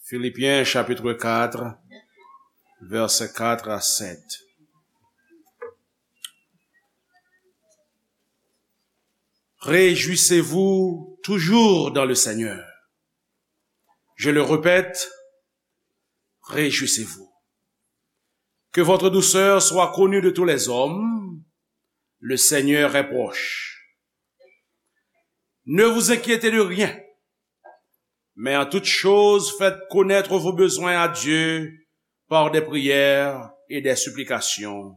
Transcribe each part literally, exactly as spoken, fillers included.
Philippiens chapitre quatre, versets quatre à sept. Réjouissez-vous toujours dans le Seigneur. Je le répète, réjouissez-vous. Que votre douceur soit connue de tous les hommes. Le Seigneur est proche. Ne vous inquiétez de rien, mais en toute chose faites connaître vos besoins à Dieu par des prières et des supplications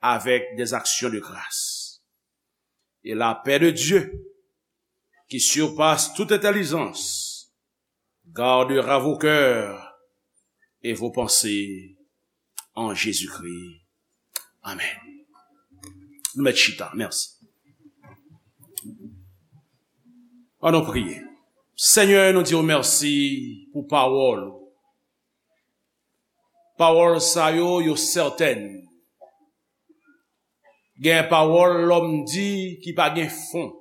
avec des actions de grâce. Et la paix de Dieu, qui surpasse toute intelligence, gardera vos cœurs et vos pensées en Jésus-Christ. Amen. Nou mèt chita. Mèsi. Ann nou priye. Senyè, nou di w mèsi pou pawòl ou. Pawòl sa yo, yo sètèn. Gen pawòl lòm di ki pa gen fon.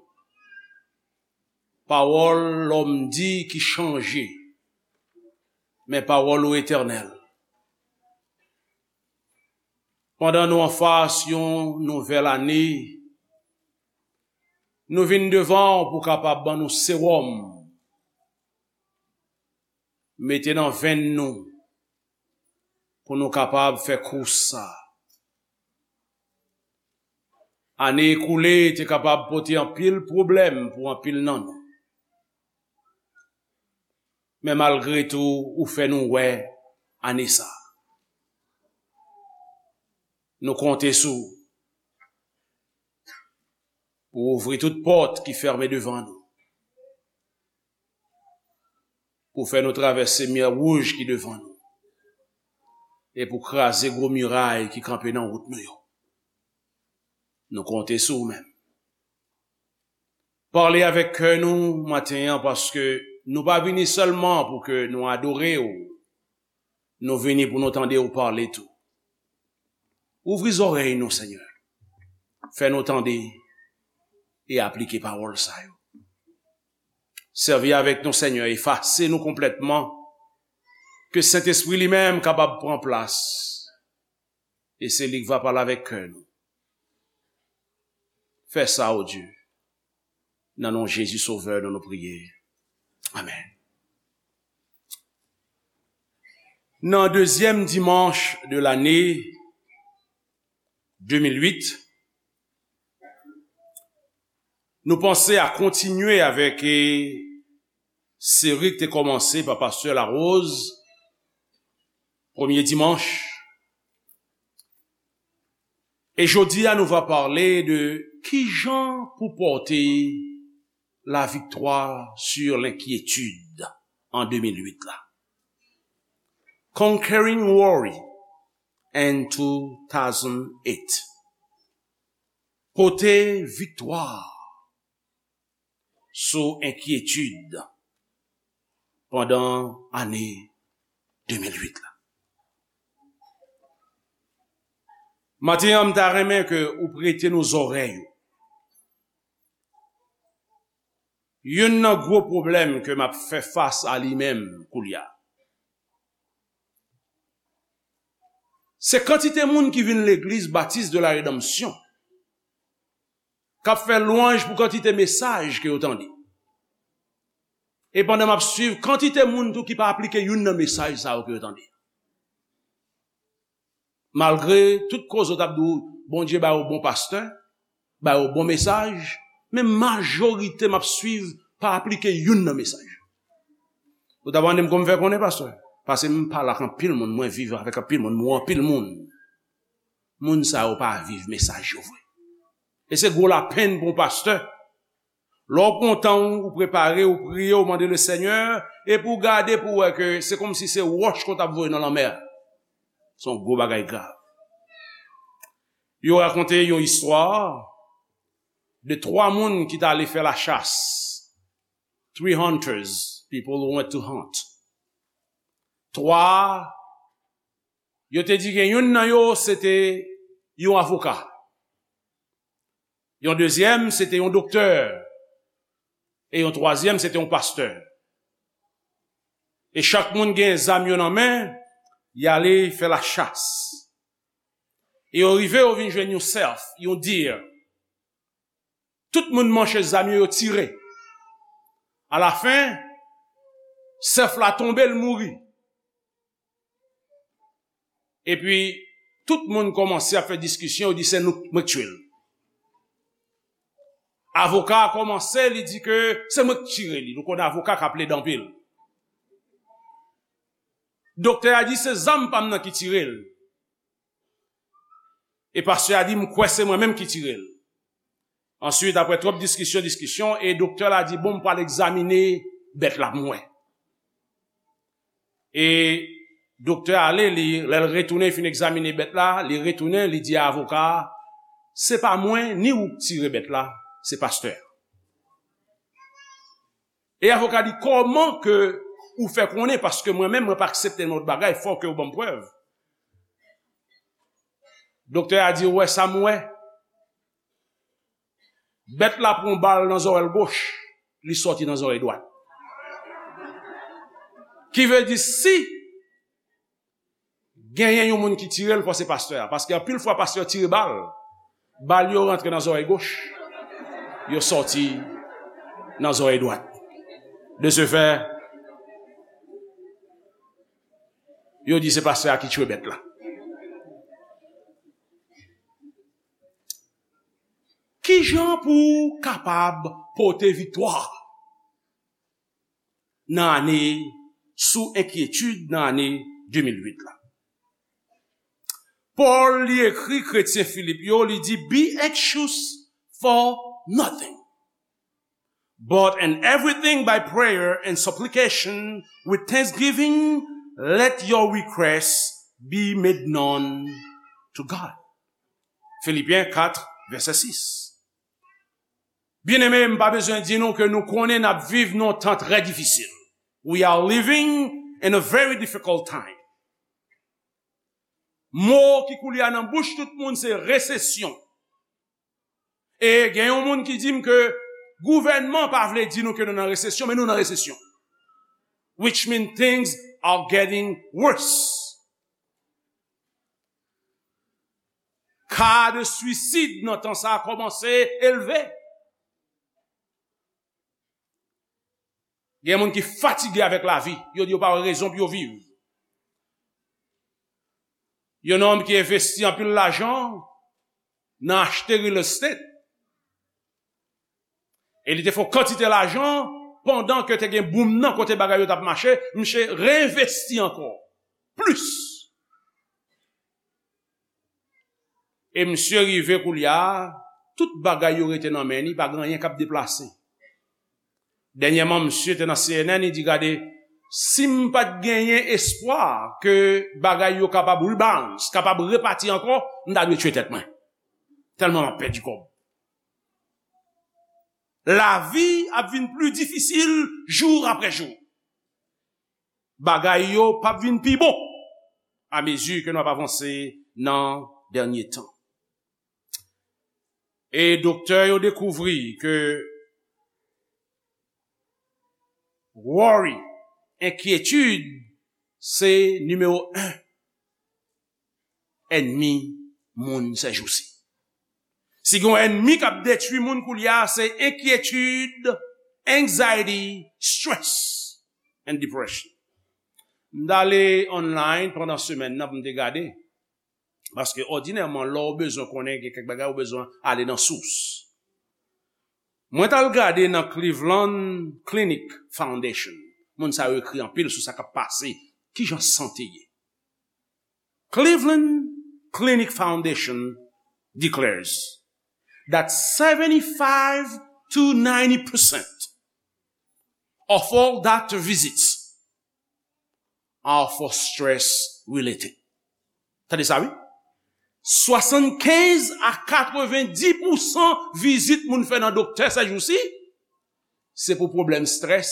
Pawòl lòm di ki chanje. Men pawòl ou etènèl. Pandan nou anfas yon nouvèl ane, nou vin devan w pou w kapab ban nou sewòm, mete nan venn nou, pou nou kapab fè kous sa. Ane ekoule te kapab pote anpil pwoblèm pou anpil nan nou. Men malgre tou, ou fè nou wè ane sa. Nou konte sou ou pou ouvri tout pòt ki fèmen devan nou, pou fè nou travèse mè wouj ki devan nou, e pou kraze gwo miray ki kanpe nan wout nou yo. Nou konte sou ou menm. Pale avèk kè nou maten an, paske nou pa vini sèlman pou ke nou adore w, nou vini pou nou tande w pale tou. Ouvri zòrèy nou, Senyè. Fè nou tande e aplike pawòl sa yo. Sèvi avèk nou, Senyè, efase nou konplètman. Ke Sentespri li menm kapab pran plas. E se li k va pale avèk kè nou. Fè sa, o Dye. Nan non Jezi Sovè nou, nou priye. Amèn. Nan dezyèm dimanch de lane de mil uit, nou panse a kontinye avèk, eh, seri ki te kòmanse pa pastè Larose, premye dimanch. E jodi a, nou va pale de kijan pou pòte la victoire sur l'inquiétude an de mil uit la. Conquering Worry in two thousand eight. Pote viktwa sou enkyetid pandan ane de mil uit la. Maten an, m ta renmen ke ou prete nou zòrèy ou. Youn nan gwo pwoblèm ke m ap fè fas a li menm koulye a, se kantite moun ki vin legliz Baptiste de la Rédemption, k ap fè lwanj pou kantite mesaj ke yo tande. E pandan m ap swiv, kantite moun tou ki pa aplike youn nan mesaj sa yo ke yo tande. Malgre tout koze w t ap di w, Bondye ba yo bon pastè, ba yo bon mesaj, men majorite m ap swiv pa aplike youn nan mesaj. Ou ta mande m kòman m fè konnen, pastè? Paske m pale ak anpil moun, mwen viv avèk anpil moun, m wè anpil moun. Moun sa yo pa viv mesaj yo vre. E se gwo lapenn pou yon pastè. Lè w pran tan w, ou prepare, ou priye, ou mande le Senyè, epi w gade pou w wè ke se kòmsi se wòch ke w t ap voye nan lanmè a. Se yon gwo bagay grav. Yo rakonte yon istwa de twa moun ki t ale fè lachas. Three hunters, people who went to hunt. Twa, yo te di gen youn nan yo, se te yon avoka. Yon dezyèm, se te yon doktè. E yon twazyèm, se te yon pastè. E chak moun gen zam yo nan men, y ale fè lachas. E yo rive, yo vin jwenn yon sèf, yon deer. Tout moun manche zam yo, yo tire. Alafen, sèf la tonbe, l mouri. Epi, tout moun kòmanse ap fè diskisyon, yo di se nou, mwen k tiye l. Avoka a kòmanse, li di ke se mwen k tire li. Nou konnen avoka ka plede anpil. Doktè a di se zam pa m nan ki tire l. E pastè a di m kwè se mwen menm ki tire l. Answit, apre twòp diskisyon, diskisyon, e doktè la di, bon, m pral egzamine bèt la pou m wè. E doktè a ale, li, lè l retounen, fin egzamine bèt la, li retounen, li di a avoka a, se pa mwen, ni ou k tire bèt la, se pastè a. E avoka di, kòman ke ou fè konnen, paske mwen menm, mwen pa aksepte nenpòt bagay, fò ke ou ban m prèv. Doktè a di, ou wè sa m wè? Bèt la pran bal nan zòrèy goch, li sòti nan zòrèy dwat. Ki vle di, si genyen yon moun ki tire l, fò se pastè a. Paske anpil fwa, pastè tire bal, bal yo rantre nan zòrèy goch, yo sòti nan zòrèy dwat. De ce fait, yo di se pastè a ki tchwe bèt la. Kijan pou w kapab pote viktwa nan ane, sou enkyetid nan ane de mil uit la? Pòl, li ekri kretyen Filip yo, li di, be anxious for nothing, but in everything by prayer and supplication with thanksgiving, let your requests be made known to God. Filipyen kat, vèsè sis. Byeneme, m pa bezwen di nou ke nou konnen n ap viv nan yon tan trè difisil. We are living in a very difficult time. Mo ki koule a nan bouch tout moun se resesyon. E gen yon moun ki di m ke gouvènman pa vle di nou ke nou nan resesyon, men nou nan resesyon. Which means things are getting worse. Ka de suicide nan tan sa a kòmanse elve. Gen moun ki fatige avèk lavi, yo di yo pa wè rezon pou yo viv. Yon nonm ki envesti anpil lajan nan achte real estate. E li te fè yon kantite lajan pandan ke te gen boom nan kote bagay yo t ap mache, misye reenvesti ankò plis. E misye rive koulye a, tout bagay yo rete nan men li, pa gen anyen k ap deplase. Dènyèman, misye te nan C N N, li di, gade, si m pa t genyen espwa ke bagay yo kapab rebounce, kapab repati ankò, m ta dwe tchwe tèt mwen. Tèlman m ap pèdi kòb. Lavi ap vin pli difisil jou apre jou. Bagay yo p ap vin pi bon amezi ke n ap avanse nan dènye tan. E doktè yo dekouvri ke worry, enkyetid, se nimewo en ènmi moun sèjousi. Si gen yon ènmi k ap detwi moun koulye a, se enkyetid, anxiety, stress and depression. M t ale online pandan semèn nan pou m te gade, paske òdinèman, lè w bezwen konnen gen kèk bagay, ou bezwen ale nan sous. Mwen t al gade nan Cleveland Clinic Foundation. Moun sa yo ekri anpil sou sa k ap pase, kijan sante ye. Cleveland Clinic Foundation declares that seventy-five to ninety percent of all doctor visits are for stress related. Tande sa, wi. Swasannkenz a katrevendi pousan vizit moun fè nan doktè sèjousi, se pou pwoblèm strès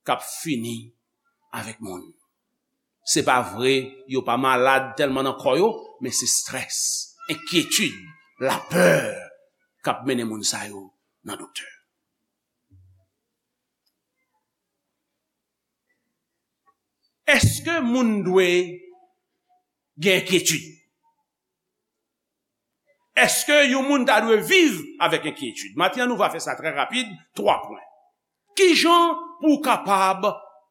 k ap fini avèk moun. Se pa vre, yo pa malad tèlman nan kò yo, men se strès, enkyetid, lapè k ap mennen moun sa yo nan doktè. Èske moun dwe gen enkyetid? Èske yon moun ta dwe viv avèk enkyetid? Maten an, nou va fè sa trè rapid, twa pwen. Ki jan pou w kapab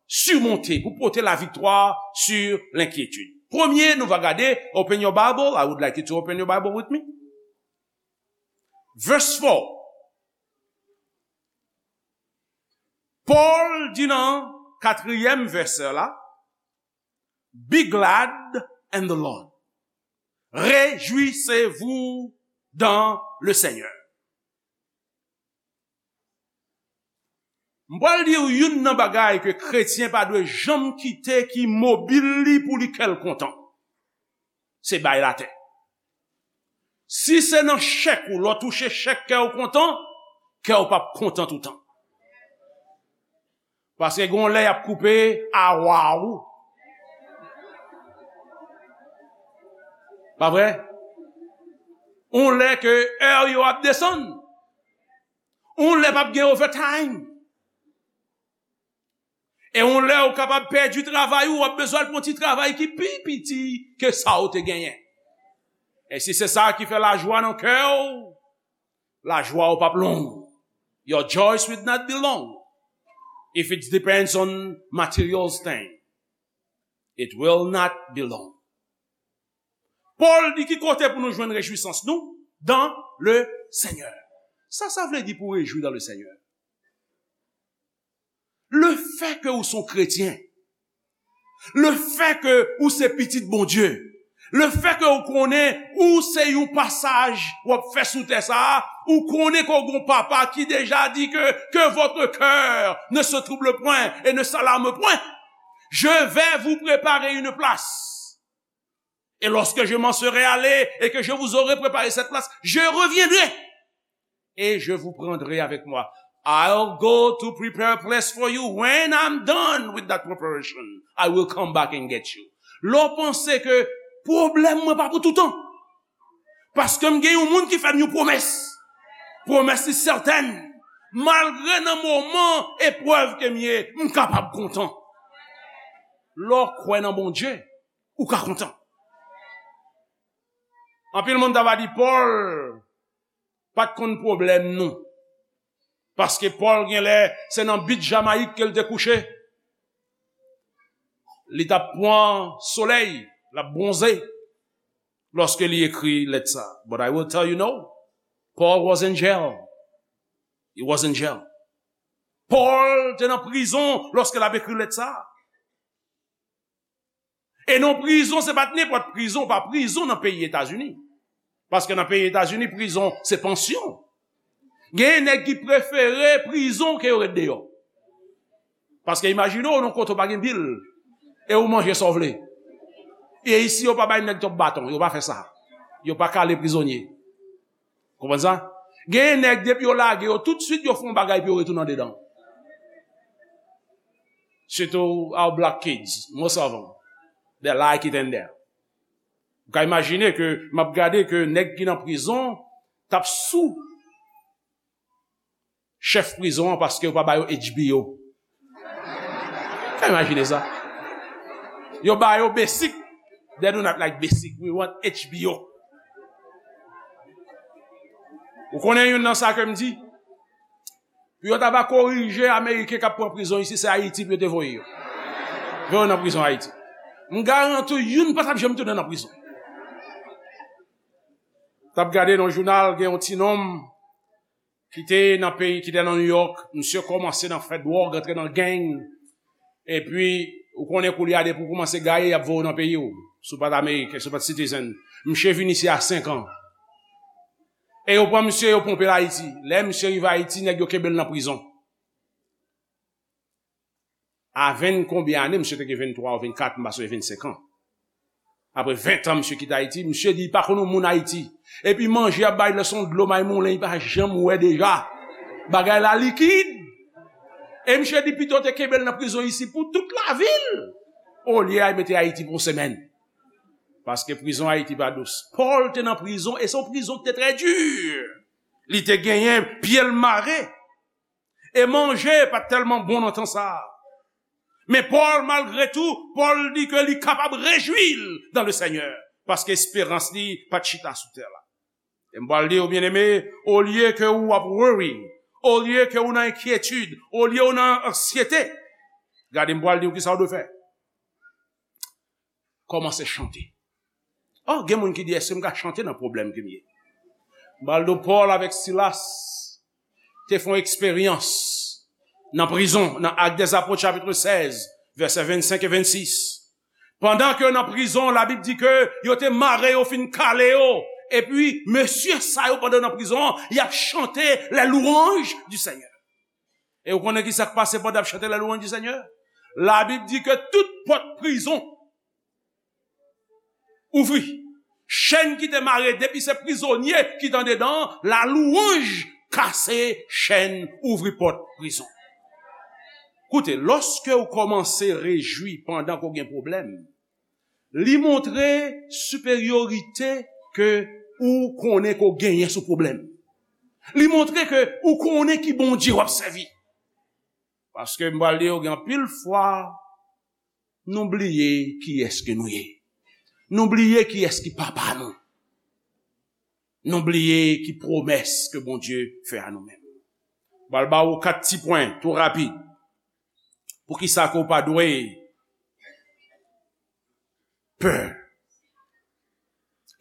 simonte, pou pote laviktwa sur lenkyetid? Premye, nou va gade, open your Bible, I would like you to open your Bible with me. Verse four. Pòl di nan katriyèm vèsè la, "Be glad in the Lord." Réjouissez-vous dans le Seigneur. M pral di w youn nan bagay ke kretyen pa dwe janm kite ki mobil li pou li kè l kontan. Se bay latè. Si se nan chèk ou, lè w touche chèk kè w kontan, kè w p ap kontan toutan. Paske gon lè y ap koupe awa ou. Pa vre? On lè ke è yo ap desann. On lè p ap gen overtime. E on lè ou kapab pèdi travay ou, w ap bezwen al pran ti travay ki pi piti ke sa ou te genyen. E si se sa ki fè lajwa nan kè w, lajwa ou p ap long. Your joys will not be long. If it depends on material thing, it will not be long. Pòl di ki kote pou nou jwenn rejwisans nou? Dans le Seigneur. Sa sa vle di pou rejwi dans le Seigneur? Le fè ke ou se yon kretyen, le fè ke ou se pitit Bondye, le fè ke ou konnen ou se yon pasaj w ap fè sou tè sa a, ou konnen ke w gon papa ki deja di ke, "Que votre cœur ne se trouble point et ne s'alarme point. Je vais vous préparer une place. Et lorsque je m'en serai allé et que je vous aurai préparé cette place, je reviendrai et je vous prendrai avec moi." I'll go to prepare a place for you. When I'm done with that preparation, I will come back and get you. Lè w panse ke pwoblèm mwen pa pou toutan. Paske m gen yon moun ki fè m yon pwomès. Pwomès li sètèn. Malgre nan moman eprèv ke m ye, m kapab kontan. Lè w kwè nan Bondye, ou ka kontan. Anpil moun ta va di Pòl pa t konn pwoblèm nou. Paske Pòl gen lè se nan bit Jamayik ke l te kouche. Li t ap pran solèy, l ap bwonze lòske li ekri lèt sa. But I will tell you no. Paul was in jail. He was in jail. Pòl te nan prizon lòske l ap ekri lèt sa. E non prizon, se pa t nenpòt prizon, pa prizon nan peyi Etazini. Paske nan peyi Etazini, prizon, se pansyon. Gen nèg ki prefere prizon ke yo ret deyò. Paske imajine w nan kote w pa gen bil, e ou manje sa w vle. E isi, yo pa bay nèg twòp baton, yo pa fè sa. Yo pa kale prizonye. Konprann sa? Gen nèg, depi yo lage yo, toutswit yo fè yon bagay pou yo retounen andedan. Sitou our black kids, most of them, they like it in there. Ou ka imajine ke m ap gade ke nèg ki nan prizon t ap sou chèf prizon an paske yo pa ba yo H B O. Ou ka imajine sa? Yo ba yo basic. They do not like basic. We want H B O. Ou konnen youn nan sa ke m di? Pou yo ta va korije Ameriken k ap pran prizon isi, se Ayiti pou yo te voye yo. Voye yo nan prizon Ayiti. M garanti w, youn pa t ap janm tounen nan prizon. T ap gade nan jounal, gen yon ti nonm ki te nan peyi, ki te nan New York, misye kòmanse nan fè dwòg, antre nan gang. Epi, ou konnen koulye a, depi w kòmanse gaye, y ap voye w nan peyi w. Si w pa t Ameriken, si w pa t citizen. Misye vin isi a senk an. E yo pran misye, yo ponpe l Ayiti. Lè misye rive Ayiti, nèg yo kenbe l nan prizon. A ven konbyen ane, misye te gen venntwa ou vennkat, m pa sonje, vennsenk an. Apre ven tan, misye kite Ayiti, misye di li pa konn yon moun Ayiti. Epi manje y ap bay lè se yon dlo may moulen, li pa janm wè deja. Bagay la likid. E misye di pito te kenbe l nan prizon isi pou tout lavi l, olye a mete Ayiti pou yon semèn. Paske prizon Ayiti pa dous. Pòl te nan prizon, e se yon prizon ki te trè di. Li te genyen pye l mare. E manje pa t tèlman bon nan tan sa a. Men Pòl, malgre tou, Pòl di ke li kapab rejwi l dans le Seigneur, paske esperans li pa t chita sou tè la. E m pral di w, byeneme, olye ke w ap worry, olye ke w nan enkyetid, olye w nan ansyete, gade, m pral di w kisa w dwe fè. Kòmanse chante. Oh, gen moun ki di, èske m ka chante nan pwoblèm ke m ye? M pral di w, Pòl avèk Silas te fè yon eksperyans nan prizon, nan Actes des Apôtres, chapitre seize, vèsè vennsenk e vennsis. Pandan ke yo nan prizon, Labib di ke yo te mare yo, fin kale yo. Epi, mesye sa yo, pandan yo nan prizon an, y ap chante les louanges du Seigneur. E w konnen ki sa k pase pandan y ap chante les louanges du Seigneur? Labib di ke tout pòt prizon ouvri. Chèn ki te mare depi se prizonye ki te andedan an, la louanj kase chèn, ouvri pòt prizon. Koute, lòske w kòmanse rejwi pandan ke w gen pwoblèm, li montre siperyorite ke ou konnen ke w genyen sou pwoblèm. Li montre ke ou konnen ki Bondye w ap sèvi. Paske m pral di w, gen anpil fwa, nou bliye kiyès ke nou ye. Nou bliye kiyès ki papa nou. Nou bliye ki pwomès ke Bondye fè a nou menm. M pral ba w kat ti pwen, tou rapid. Poukisa ke w pa dwe pè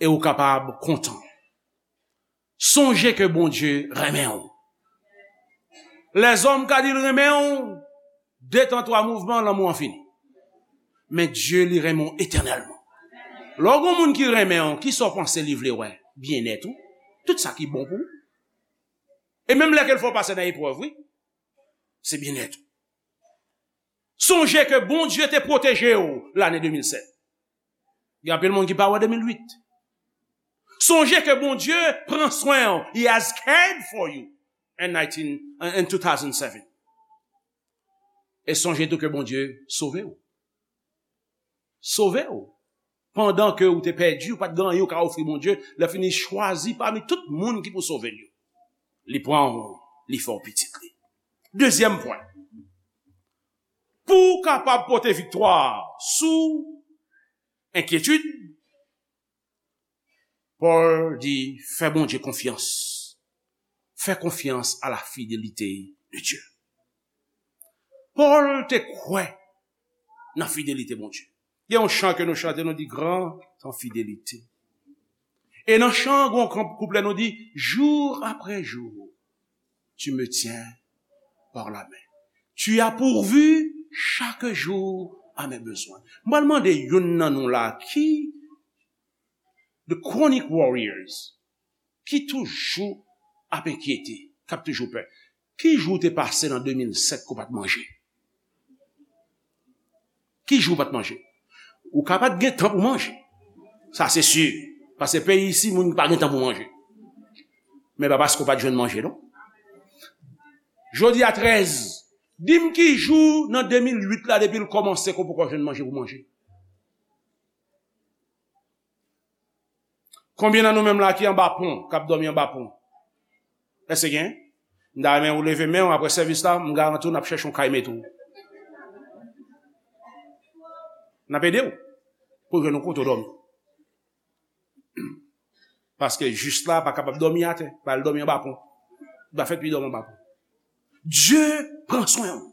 e w kapab kontan? Sonje ke Bondye renmen w. Lèzòm ka di l renmen w, de tan twa mouvman, lanmou an fini. Men Dye, li renmen w etènèlman. Lè w gen yon moun ki renmen w, kisa w panse li vle wè? Byennèt ou. Tout sa ki bon pou ou. E menm lè ke l fè w pase nan eprèv, wi. Se byennèt ou. Sonje ke Bondye te pwoteje w lane de mil sèt. Gen anpil moun ki pa wè de mil uit. Sonje ke Bondye pran swen w. He has cared for you in nineteen, in two thousand seven. E sonje tou ke Bondye sove w. Sove w. Pandan ke w te pèdi, ou pa t gen anyen ou ka ofri Bondye, lè fini chwazi pami tout moun ki pou sove l yo. Li pran w, li fè w pitit li. Dezyèm pwen. Pou w kapab pote viktwa sou enkyetid, Pòl di, fè Bondye konfyans. Fè konfyans à la fidélité de Dieu. Pòl te kwè nan fidelite Bondye. Gen yon chan ke nou chante, nou di, grand en fidélité. E nan chan, gen yon kouplè, nou di, jour après jour, tu me tiens par la main. Tu as pourvu chaque jour à mes besoins. M pral mande youn nan nou la, ki the chronic warriors, ki toujou ap enkyete, k ap toujou pè. Ki jou w te pase nan de mil sèt ke w pa t manje? Ki jou w pa t manje? Ou ka pa t gen tan pou manje. Sa se si. Paske peyi isi, moun pa gen tan pou manje. Men pa paske w pa t jwenn manje, non. Jodi a trèz, di m ki jou nan de mil uit la, depi l kòmanse, ke w poko jwenn manje pou manje. Konbyen nan nou menm la ki anba pon, k ap dòmi anba pon? Èske gen? M ta renmen ou leve men w apre sèvis la, m garanti w n ap chèche yon kay mete w. N ap ede w pou w jwenn yon kote w dòmi. Paske jis la pa kapab dòmi atè, ba l dòmi anba pon. Li pa fèt pou li dòmi anba pon. Dye pran swen w.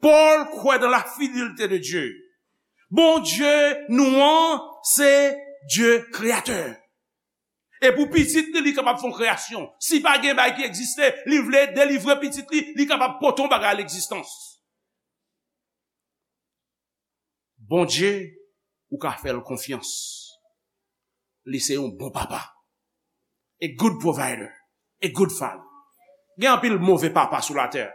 Pòl kwè dans la fidélité de Dieu. Bondye nou an, se Dye kreyatè. E pou pitit li, li kapab fè yon kreyasyon. Si pa gen bagay ki egziste, li vle delivre pitit li, li kapab pote yon bagay a legzistans. Bondye, ou ka fè l konfyans. Li se yon bon papa. A good provider. A good father. Gen anpil move papa sou latè.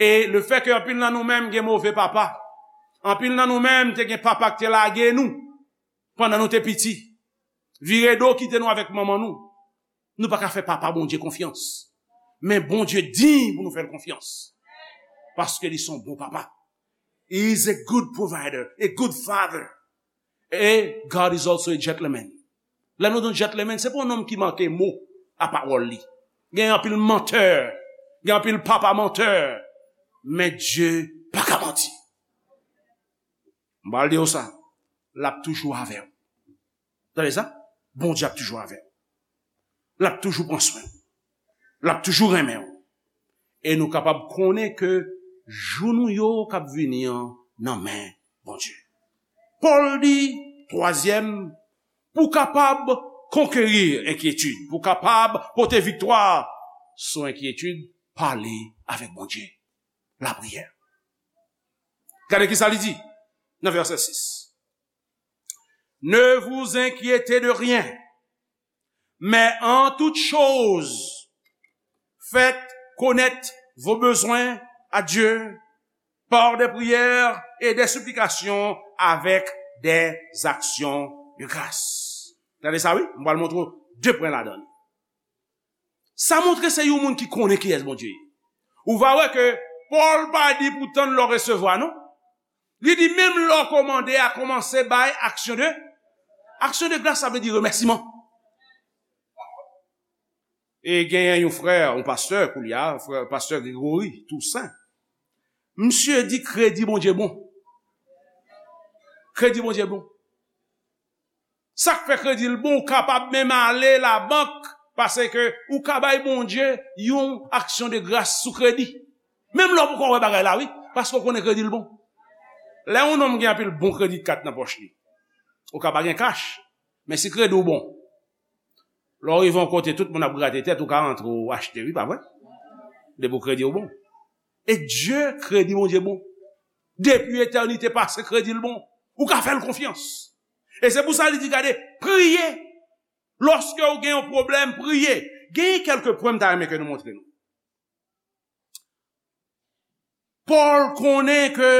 E lefètke anpil nan nou menm gen move papa, anpil nan nou menm te gen papa ki te lage nou pandan nou te piti, vire do kite nou avèk manman nou, nou pa ka fè papa Bondye konfyans. Men Bondye diy pou nou fè l konfyans. Paske li se yon bon papa. He is a good provider, a good father. E God is also a gentleman. Lè nou di yon gentleman, se pa yon nonm ki manke mo a pawòl li. Gen anpil mantè, gen anpil papa mantè. Men Dye pa ka manti. M pral di w sa, l ap toujou avè w. Tande sa? Bondye ap toujou avè w. L ap toujou pran swen w. L ap toujou renmen w. E nou kapab konnen ke jou nou yo k ap vini an nan men Bondye. Pòl di, twazyèm, pou w kapab konkeri enkyetid, pou w kapab pote viktwa sou enkyetid, pale avèk Bondye. Lapriyè. Gade ki sa li di nan vèsè sis. Ne vous inquiétez de rien, mais en toute chose, faites connaître vos besoins à Dieu par des prières et des supplications avec des actions de grâce. Gade sa, wi. M pral montre w de pwen ladan li. Sa montre se yon moun ki konnen kiyès Bondye ye. Ou va wè ke Pòl pa di pou tann lè w resevwa, non. Li di menm lè w kòmande a, kòmanse bay aksyon de, aksyon de gras, sa vle di remèsiman. E genyen yon frè, yon pastè, koulye a, frè, pastè Gregory Toussaint. Misye di kredi Bondye bon. Kredi Bondye bon. Sa k fè kredi l bon, ou kapab menm ale labank, paske ou ka bay Bondye yon aksyon de gras sou kredi. Menm lè w poko wè bagay la, wi, paske w konnen kredi l bon. Lè yon nonm gen anpil bon kredi kat nan pòch li, ou ka pa gen kach, men si kredi w bon, lè w rive yon kote, tout moun ap grate tèt, ou ka rantre, ou achte, wi, pa vre? Depi w kredi w bon. E Dye, kredi Bondye bon. Depi etènite pase, kredi l bon. Ou ka fè l konfyans. E se pou sa li di, gade, priye. Lòske w gen yon pwoblèm, priye. Gen kèlke pwen m ta renmen ke nou montre nou. Pòl konnen ke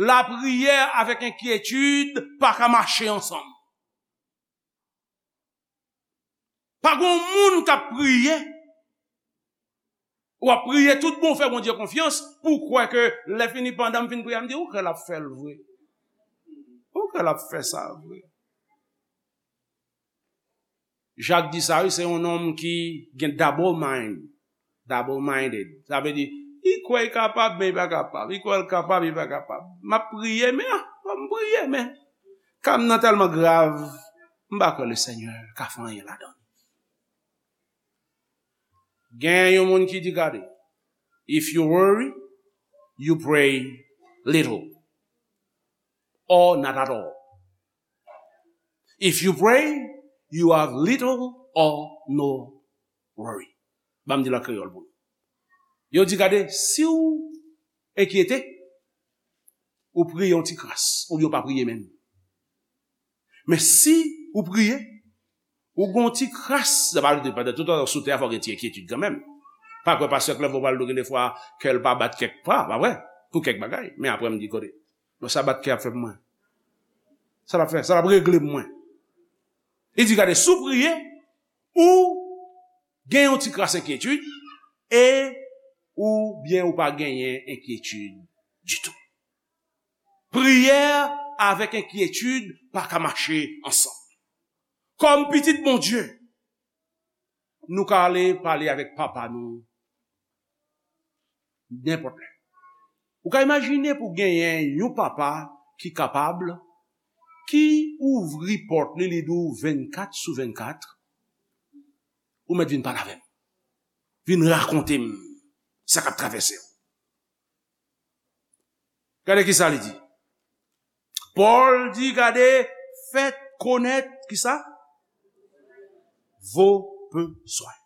lapriyè avèk enkyetid pa ka mache ansanm. Pa gen yon moun k ap priye, w ap priye tout bon, w fè Bondye konfyans, pou w kwè ke lè fini, pandan m fin priye, m di, ou kwè l ap fè l vre? Ou kwè l ap fè sa vre? Jak di sa, wi, se yon nonm ki gen double mind. Double minded. Sa vle di, li kwè li kapab, men li pa kapab. Li kwè l kapab, li pa kapab. M ap priye, men, ah, fò m priye, men ka m nan tèlman grav, m pa kwè Lesenyè ka fè anyen ladan l. Gen yon moun ki di, gade, if you worry, you pray little or not at all. If you pray, you have little or no worry. Ban m di l an kreyòl pou nou. Yo di, gade, si w enkyete, ou priye yon ti kras, oubyen w pa priye menm. Men si ou priye, ou gon ti kras, sa pa vle di pandan tout tan sou tè a, fò gen ti enkyetid kanmenm. Pa kwè pastè Clerveau pral di w gen defwa kè l pa bat kèk pa, pa vre? Pou kèk bagay. Men apre m di, kote, non, sa bat kè ap fè pou mwen? Sa l ap fè? Sa l ap regle pou mwen? Li di, gade, si w priye, ou gen yon ti kras enkyetid, e oubyen ou pa genyen enkyetid ditou. Priyè avèk enkyetid pa ka mache ansanm. Kòm pitit Bondye, nou ka ale pale avèk Papa nou nenpòt lè. Ou ka imajine pou genyen yon papa ki kapab, ki ouvri pòt li, li di w vennkat sou vennkat, ou mèt vin pale avè m. Vin rakonte m sa k ap travèse w. Gade ki sa li di. Pòl di, gade, faites connaître ki sa? Vos besoins.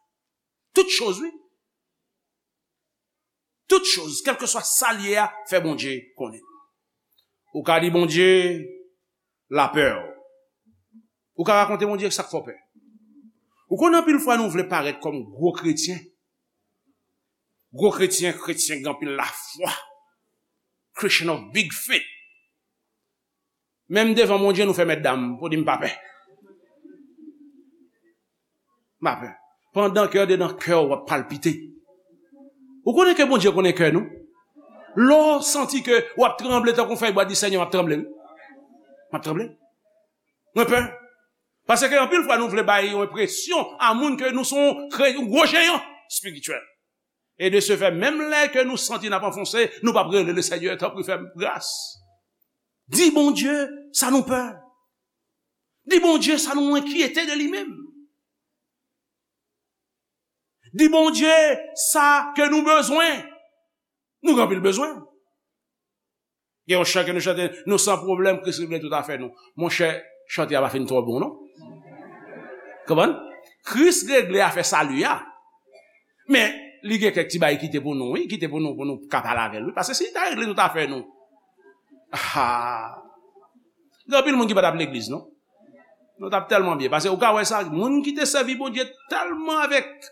Tout choz, wi. Tout choz, kèlkeswa sa l ye a, fè Bondye konnen. Ou ka di Bondye, lapè w. Ou ka rakonte Bondye sa k fè w pè. Ou konnen anpil fwa nou vle parèt kòm gwo kretyen. Gwo kretyen, kretyen gen anpil lafwa. Christian of big faith. Menm devan Bondye nou fè mèt dam pou di m pa pè. M pa pè. Pandan ke andedan kè w ap palpite. Ou konnen ke Bondye konnen kè nou? Lè w santi ke w ap tranble tankou fèy bwa, di, Senyè, m ap tranble, wi. M ap tranble. Mwen pè. Paske anpil fwa nou vle bay yon enpresyon a moun ke nou se yon kre-, yon gwo jeyan espirityèl. E de se fè, menm lè ke nou santi n ap anfonse, nou p ap rele Lesenyè, tanpri fè m gras. Di Bondye sa nou pè. Di Bondye sa nou enkyete de li menm. Di Bondye sa ke nou bezwen. Nou gen anpil bezwen. Gen yon chan ke nou chante, nou san pwoblèm, Kris regle tout afè nou. Monchè, chante a pa fin twò bon, non. Konprann? Kris regle afè sali a. Men, li gen kèk ti bagay kite pou nou, wi, kite pou nou, pou nou ka pale avè l, wi. Paske si li ta regle tout afè nou, ah, gen anpil moun ki pa t ap legliz, non. Nou t ap tèlman byen. Paske ou ka wè sa, moun ki te sèvi Bondye tèlman avèk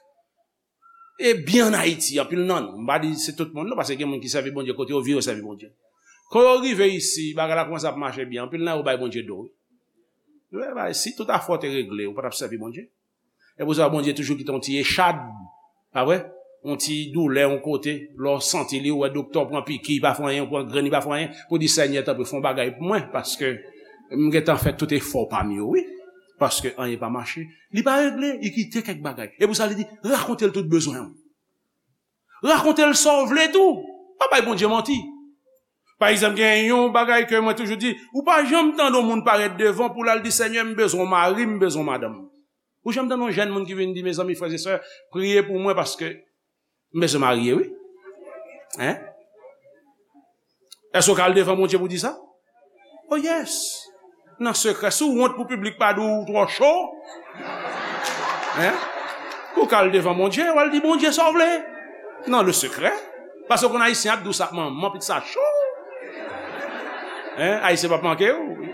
e byen ann Ayiti, anpil nan nou, m pa di se tout moun, non, paske gen moun ki sèvi Bondye, kote yo viv, yo sèvi Bondye. Kan yo rive isi, bagay la kòmanse ap mache byen, anpil nan yo bay Bondye do, wi. Yo bay, si tout afè w te regle, ou pa t ap sèvi Bondye. E pou sa, Bondye toujou kite yon ti echad, pa vre? Yon ti doulè, yon kote, lè w santi li, ou wè doktè, w pran piki, li pa fè anyen, ou pran grenn, li pa fè anyen, pou di, Senyè, tanpri, fè yon bagay pou mwen, paske m gentan fè tout efò pa m yo, wi. Paske anyen pa mache. Li pa regle, li kite kèk bagay. E pou sa, li di, rakonte l tout bezwen w. Rakonte l sa w vle tou. Pa bay Bondye manti. Pa egzanp, gen yon bagay ke mwen toujou di, ou pa janm tande yon moun parèt devan pou l al di, Senyè, m bezwen yon mari, m bezwen yon madanm. Ou janm tande yon jèn moun ki vin di, mezanmi, frè e sè, priye pou mwen paske m bezwen marye, wi. Hein? Èske w ka al devan Bondye pou di sa? Oh yes. Nan sekrè, si w wont pou piblik pa di w twò cho, hein? Ou ka al devan Bondye, w al di Bondye sa w vle. Nan le sekrè. Paske w konn Ayisyen ap di w sa, manman, pitit sa cho. Hein? Ayisyen p ap manke w.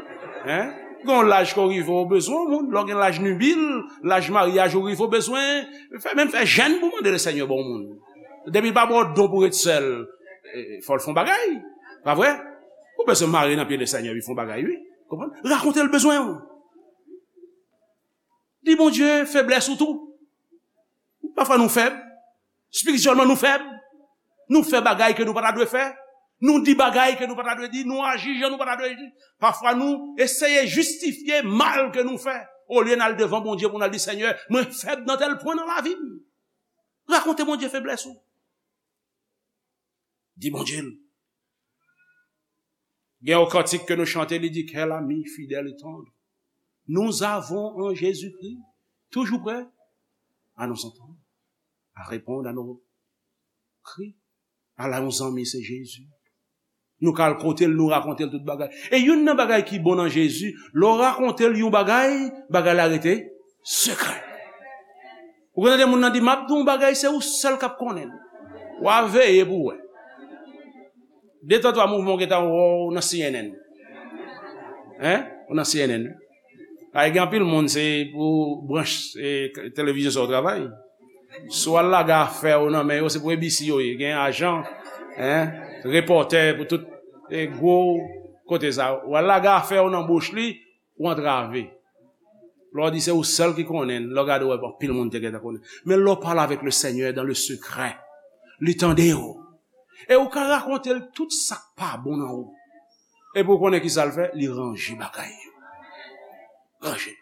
Hein? Gen yon laj ke w rive, w bezwen yon moun. Lè w gen laj nibil, laj maryaj ou rive, w bezwen fè, menm fè jèn pou mande Lesenyè ba w moun. Depi l pa ba w don pou ret sèl, eh, fò l fè yon bagay. Pa vre? Ou bezwen mare nan pye Lesenyè, wi, fè yon bagay, wi. Konprann? Rakonte l bezwen w. Di Bondye feblès ou tou. Pafwa nou fèb. Espirityèlman nou fèb. Nou fè bagay ke nou pa ta dwe fè. Nou di bagay ke nou pa ta dwe di. Nou aji jan nou pa ta dwe aji. Pafwa nou eseye jistifye mal ke nou fè. Olye n al devan Bondye pou n al di, Senyè, mwen fèb nan tèl pwen nan lavi m. Rakonte Bondye feblès ou. Di Bondye l. Gen yon kantik ke nou chante, li di, Quel ami fidèle et tendre nous avons en Jésus-Christ, toujours prêt à nous entendre, à répondre à nos cris. Ala yon zanmi, se Jezi. Nou ka al kote l, nou rakonte l tout bagay. E youn nan bagay ki bon nan Jezi, lè w rakonte l yon bagay, bagay la rete sekrè. Ou konn tande moun nan di, m ap di w yon bagay, se ou sèl k ap konnen l. W a veye pou w wè. De tan twa mouvman w gentan wè w nan C N N. Hein? Ou nan C N N. Ay, gen anpil moun, se pou branch, eh, televizyon sa w travay. Si w al lage afè w nan men yo, se pou A B C yo ye. Gen ajan, hein, repòtè pou tout, eh, gwo kote sa. W al lage afè w nan bouch li, ou antrave. Lè w di se ou sèl ki konnen, lè w gade w wè anpil moun te gentan konnen. Men lè w pale avèk le Senyè dans le secret, li tande w. E ou ka rakonte l tout sa k pa bon nan ou. Epi ou konnen ki sa l fè? Li ranje bagay yo. Ranje.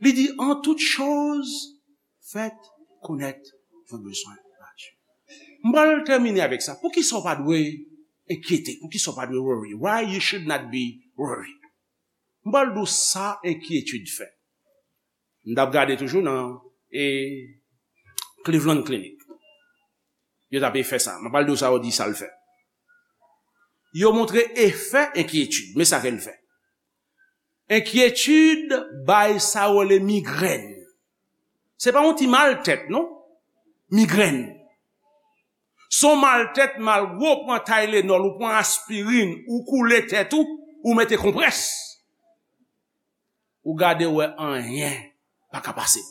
Li di, en toute chose, faites connaître vos besoins à Dieu. M pral tèmine avèk sa. Poukisa w pa dwe enkyete? Poukisa w pa dwe worry? Why you should not be worried? M pral di w sa enkyetid fè. M t ap gade toujou nan, e, Cleveland Clinic. Yo t ap fè sa. M pral di w sa yo di sa l fè. Yo montre efè enkyetid. Men sa ke l fè. Enkyetid bay sa yo rele migrèn. Se pa yon ti mal tèt, non. Migrèn. Se yon mal tèt, malgre w pran Tylenol, ou pran aspirin, ou koule tèt ou, ou mete konprès. Ou gade wè anyen pa ka pase.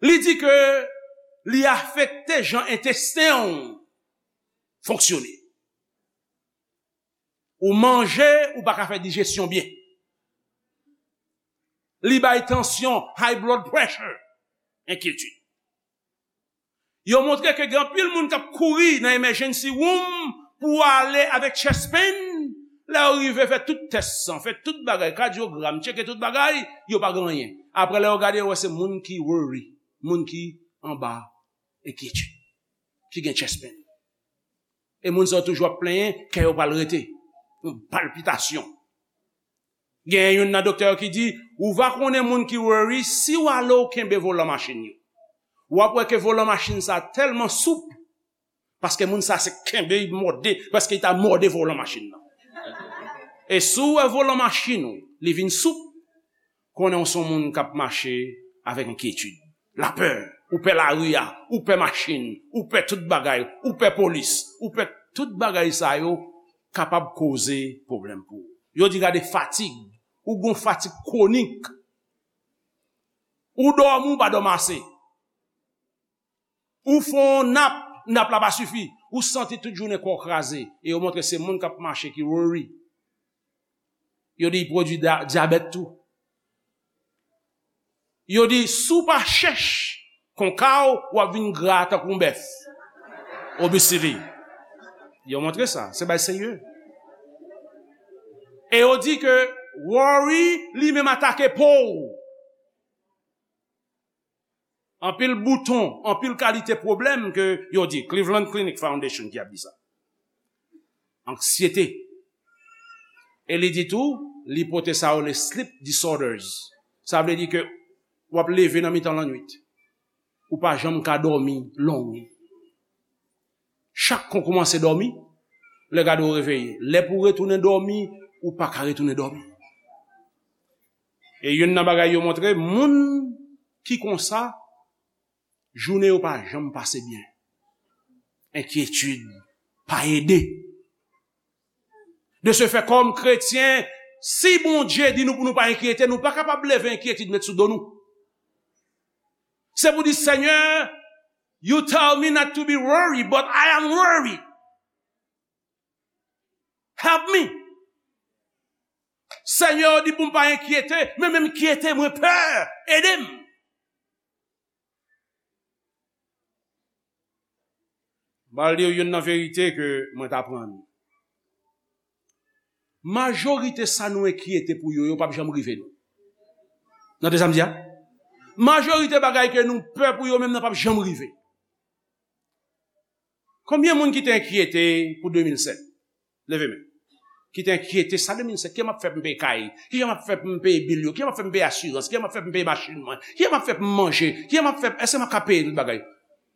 Li di ke li afekte jan entesten w fonksyone. Ou manje, ou pa ka fè dijesyon byen. Li bay tansyon, high blood pressure, enkyetid. Yo montre ke gen anpil moun k ap kouri nan emergency room pou ale avèk chest pain. Lè yo rive, fè tout tès san, fè tout bagay, kadyogram, tcheke tout bagay, yo pa gen anyen. Apre, lè yo gade, yo wè se moun ki worry, moun ki anba enkyetid, ki gen chest pain. E moun sa yo toujou ap plenyen, kè yo pral rete. Yon palpitasyon. Gen youn nan doktè yo ki di, ou va konnen moun ki worry si w ale w kenbe volan machin yo. W ap wè ke volan machin sa tèlman soup, paske moun sa se kenbe, li mòde, paske li ta mòde volan machin nan. E si w wè volan machin ou, li vin soup, konnen w se yon moun k ap mache avèk enkyetid, lapè, ou pè lari a, ou pè machin, ou pè tout bagay, ou pè polis, ou pè tout bagay sa yo kapab koze pwoblèm pou ou. Yo di gade fatig, ou gon fatig kwonik, ou dòmi, ou pa dòmi ase. Ou fè yon nap, nap la pa sifi. Ou santi tout jounen kò w kraze. E yo montre se moun k ap mache ki worry. Yo di l pwodui da- dyabèt tou. Yo di si w pa chèch konka w, w ap vin gra tankou yon bèf. Obesity. Yo montre sa. Se bagay serye. E yo di ke worry li menm atake po w. Anpil bouton, anpil kalite pwoblèm ke yo di, Cleveland Clinic Foundation ki ap di sa. Anksyete. E li di tou, li pote sa yo le sleep disorders. Sa vle di ke w ap leve nan mitan lannwit. Ou pa janm ka dòmi long. Chak kon kòmanse dòmi, lè gade w reveye. Lè pou w retounen dòmi, ou pa ka retounen dòmi. E youn nan bagay yo montre, moun ki konsa, jounen yo pa janm pase byen. Enkyetid pa ede. De ce fait, kòm kretyen, si Bondye di nou pou nou pa enkyete, nou pa kapab leve enkyetid met sou do nou. Se pou di, Senyè, you tell me not to be worried, but I am worried. Help me. Senyè, ou di pou m pa enkyete, men menm enkyete, mwen pè. Ede m. M pral di w youn nan verite ke mwen t aprann. Majorite sa nou enkyete pou yo, yo p ap janm rive nou. Tande sa m di a? Majorite bagay ke nou pè pou yo menm nan p ap janm rive. Konbyen moun ki te enkyete pou de mil sèt? Leve men. Ki te enkyete sa de mil sèt. Kijan m ap fè pou m peye kay? Kijan m ap fè pou m peye bil yo? Kijan m ap fè pou m peye asirans? Kijan m ap fè pou m peye machin mwen? Kijan m ap fè pou m manje? Kijan m ap fè, èske m ap ka peye tout bagay?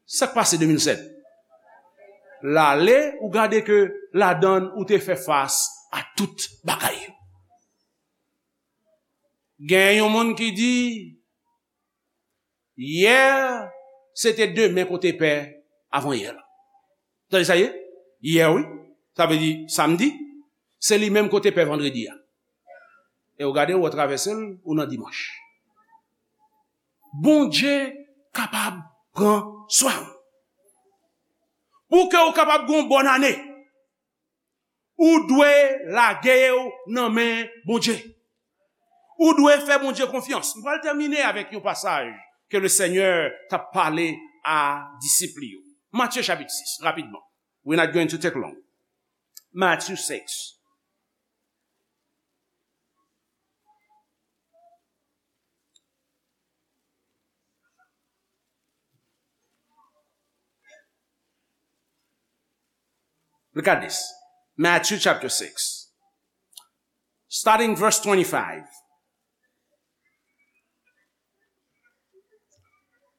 Sa k pase de mil sèt? L ale, ou gade ke ladann ou te fè fas a tout bagay yo. Gen yon moun ki di, yè, se te demen kote pè avan yè la. Tande sa ye? Yè, wi. Sa vle di samdi, se li menm kote pè vandredi a. E w gade, w travèse l, ou nan dimanch. Bondye kapab pran swen w. Pou ke w kapab gen yon bòn ane, ou dwe lage w nan men Bondye. Ou dwe fè Bondye konfyans. M pral tèmine avèk yon pasaj ke le Senyè t ap pale a disip li yo. Matye chapit sis, rapidman. We're not going to take long. Matthew six. Look at this. Matthew chapter six. Starting verse twenty-five.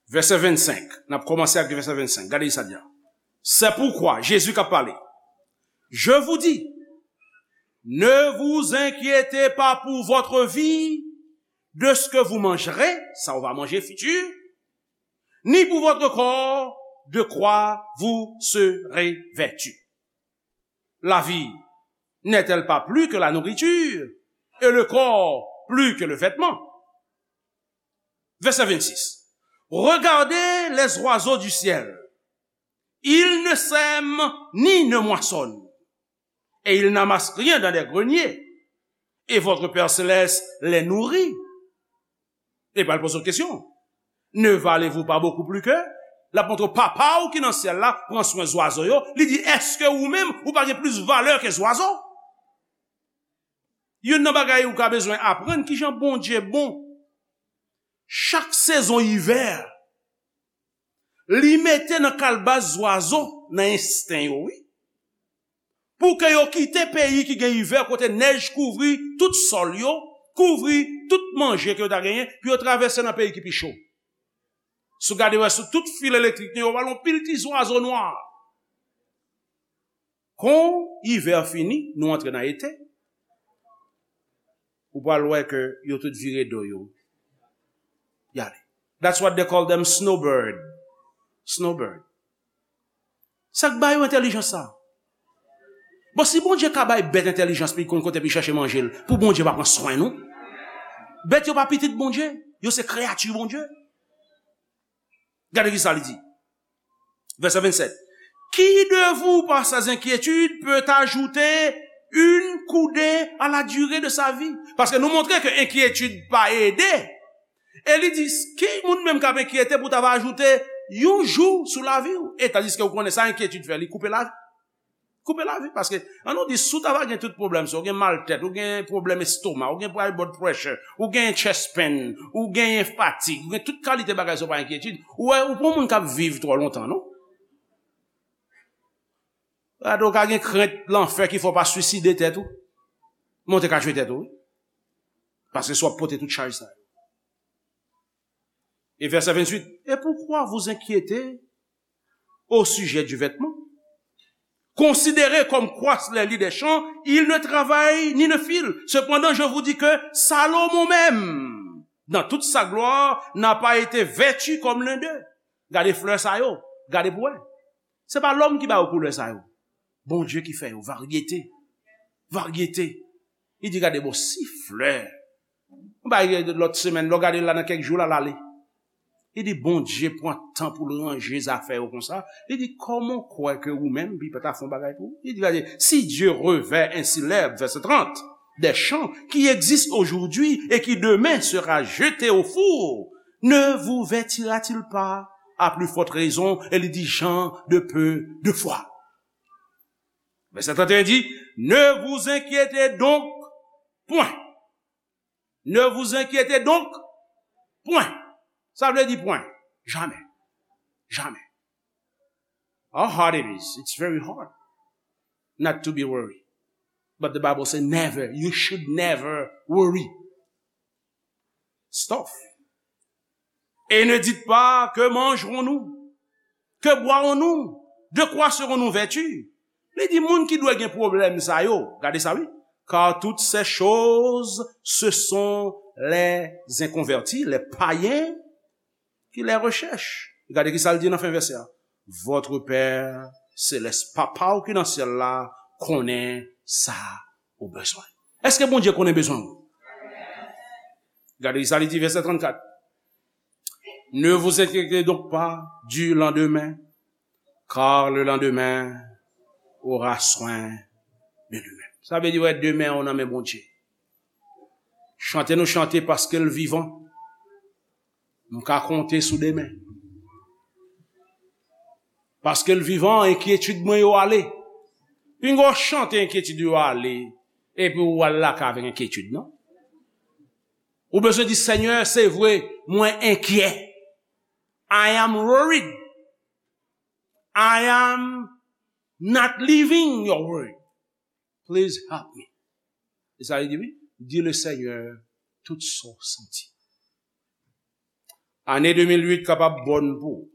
Vèsè vennsenk. N ap kòmanse ak vèsè vennsenk. Gade sa di a. C'est pourquoi, Jésus k ap pale. Je vous dis, ne vous inquiétez pas pour votre vie, de ce que vous mangerez, sa w va manje fitir, ni pour votre corps, de quoi vous serez vêtu. La vie n'est-elle pas plus que la nourriture, et le corps plus que le vêtement? Verset vingt-six. Regardez les oiseaux du ciel. Ils ne sèment ni ne moissonnent, et ils n'amassent rien dans des greniers, et votre Père céleste les nourrit. Li pral poze w kesyon. Ne valez-vous pas beaucoup plus qu'eux? L ap montre w papa w ki nan syèl la pran swen zwazo yo. Li di, èske ou menm, ou pa gen plis valè ke zwazo? Youn nan bagay ou ka bezwen aprann, kijan Bondye bon. Chak sezon ivè, Li mete nan kalbas zwazo, nan ensten yo, wi. Pou ke yo kite peyi ki gen ivè, kote nèj kouvri tout sòl yo, kouvri tout manje ke yo ta genyen, pou yo travèse nan peyi ki pi cho. Si w gade wè sou tout fil elektrik nou yo, w wè yon pil ti zwazo nwa. Kon ivè fini, nou antre nan ete, ou pral wè ke yo tout vire do yo, y ale. That's what they call them, snowbird. Snowbird. Sa k ba yo entèlijans sa? Bon, si Bondye ka bay bèt entèlijans pou l konn kote pou l chèche manje l, pou Bondye pa pran swen nou? Bèt yo pa pitit Bondye, yo se kreyati Bondye. Gade ki sa li di. Verset vingt-sept. Qui de vous, par ses inquiétudes, peut ajouter une coudée à la durée de sa vie? Paske nou montre ke enkyetid pa ede. E li di, ki moun menm k ap enkyete pou ta va ajoute yon jou sou lavi w? E tandiske ou konnen sa enkyetid fè, li koupe lavi. Koupe lavi, paske, an nou di, si w ta va gen tout pwoblèm sa, ou gen mal tèt, ou gen pwoblèm estoma, ou gen high blood pressure, ou gen chest pain, ou gen fatig, ou gen tout kalite bagay sa, ou pa enkyetid, ou wè, ou pa yon moun k ap viv twò lontan, non? Gade, ou ka gen krent lanfè ki fè w pa swiside tèt ou. Men w te ka tchwe tèt ou, wi. Paske si w ap pote tout chaj sa yo. Et verset vingt-huit, et pourquoi vous inquiéter au sujet du vêtement? Considérez comme croissent les lys des champs, ils ne travaillent ni ne filent. Cependant, je vous dis que Salomon même, dans toute sa gloire, n'a pas été vêtu comme l'un d'eux. Gade flè sa yo, gade pou wè. Se pa lòm ki ba yo koulè sa yo. Bondye ki fè yo, varyete. Varyete. Li di, gade bon, si flè. Yon bagay lòt semèn, lè w gade l la nan kèk jou la, l ale. Li di, Bondye pran tan pou l ranje zafè yo konsa. Li di, kòman w kwè ke ou menm, li pa ta fè yon bagay pou ou? Li di, gade, si Dieu revêt ainsi l'herbe, verset trente, des champs qui existent aujourd'hui et qui demain sera jeté au four, ne vous vêtira-t-il pas à plus forte raison? E li di, gens de peu de foi. Verset trente et un dit, ne vous inquiétez donc point. Ne vous inquiétez donc point. Sa vle di pwen. Jamè. Jamè. How hard it is. It's very hard not to be worried. But the Bible says never. You should never worry. Stuff. Et ne dites pas, que mangerons-nous? Que boirons-nous? De quoi serons-nous vêtus? Li di, moun ki dwe gen pwoblèm sa yo, gade sa wi. Car toutes ces choses, ce sont les inconvertis, les païens qui les recherchent. Gade ki sa l di nan fen vèsè a. Votre Père céleste, Papa w ki nan syèl la, konnen sa ou bezwen. Èske Bondye konnen bezwen w? Gade sa li di, vèsè trannkat. Ne vous inquiétez donc pas du lendemain, car le lendemain aura soin de lui-même. Sa vle di, wè, demen an nan men Bondye. Chante nou chante paske l vivan. M ka konte sou demen. Paske l vivan, enkyetid mwen yo ale. Pinga w chante enkyetid yo ale, epi w al lakay avèk enkyetid, non? Ou bezwen di, Senyè, se vre, mwen enkyè. I am worried. I am not living your word. Please help me. E sa li di, wi. Di le Seigneur tout sa w santi. Ane de mil uit kapab bòn pou ou.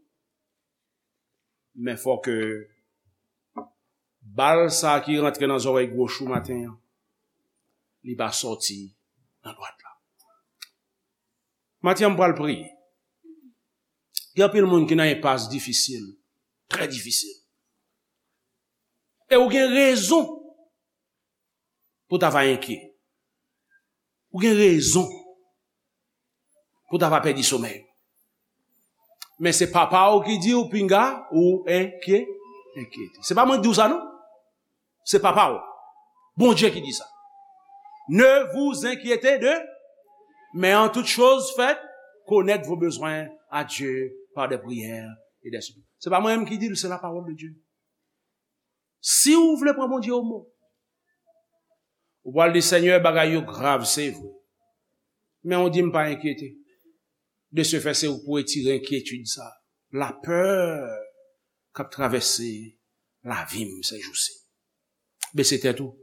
Men fò ke bal sa ki rantre nan zòrèy gwoch ou maten an, li pa sòti nan dwat la. Maten an, m pral priye. Gen anpil moun ki nan enpas difisil, trè difisil. E ou gen rezon pou ta va enkyè. Ou gen rezon pou ta va pèdi somèy. Men se papa w ki di w pinga ou enkyè, enkyete. Se pa mwen ki di w sa, non. Se papa w. Bondye ki di sa. Ne vous inquiétez de, mais en toute chose, faites connaître vos besoins à Dieu par des prières et des supplications. Se pa mwen menm ki di l, se la parole de Dieu. Si w vle pran Bondye o mo, ou pral di, Senyè, bagay yo grav, se vre. Men ou di m pa enkyete. De ce fait, se ou k pou retire enkyetid sa. lapè k ap travèse lavi m sèjousi. Bese tèt ou,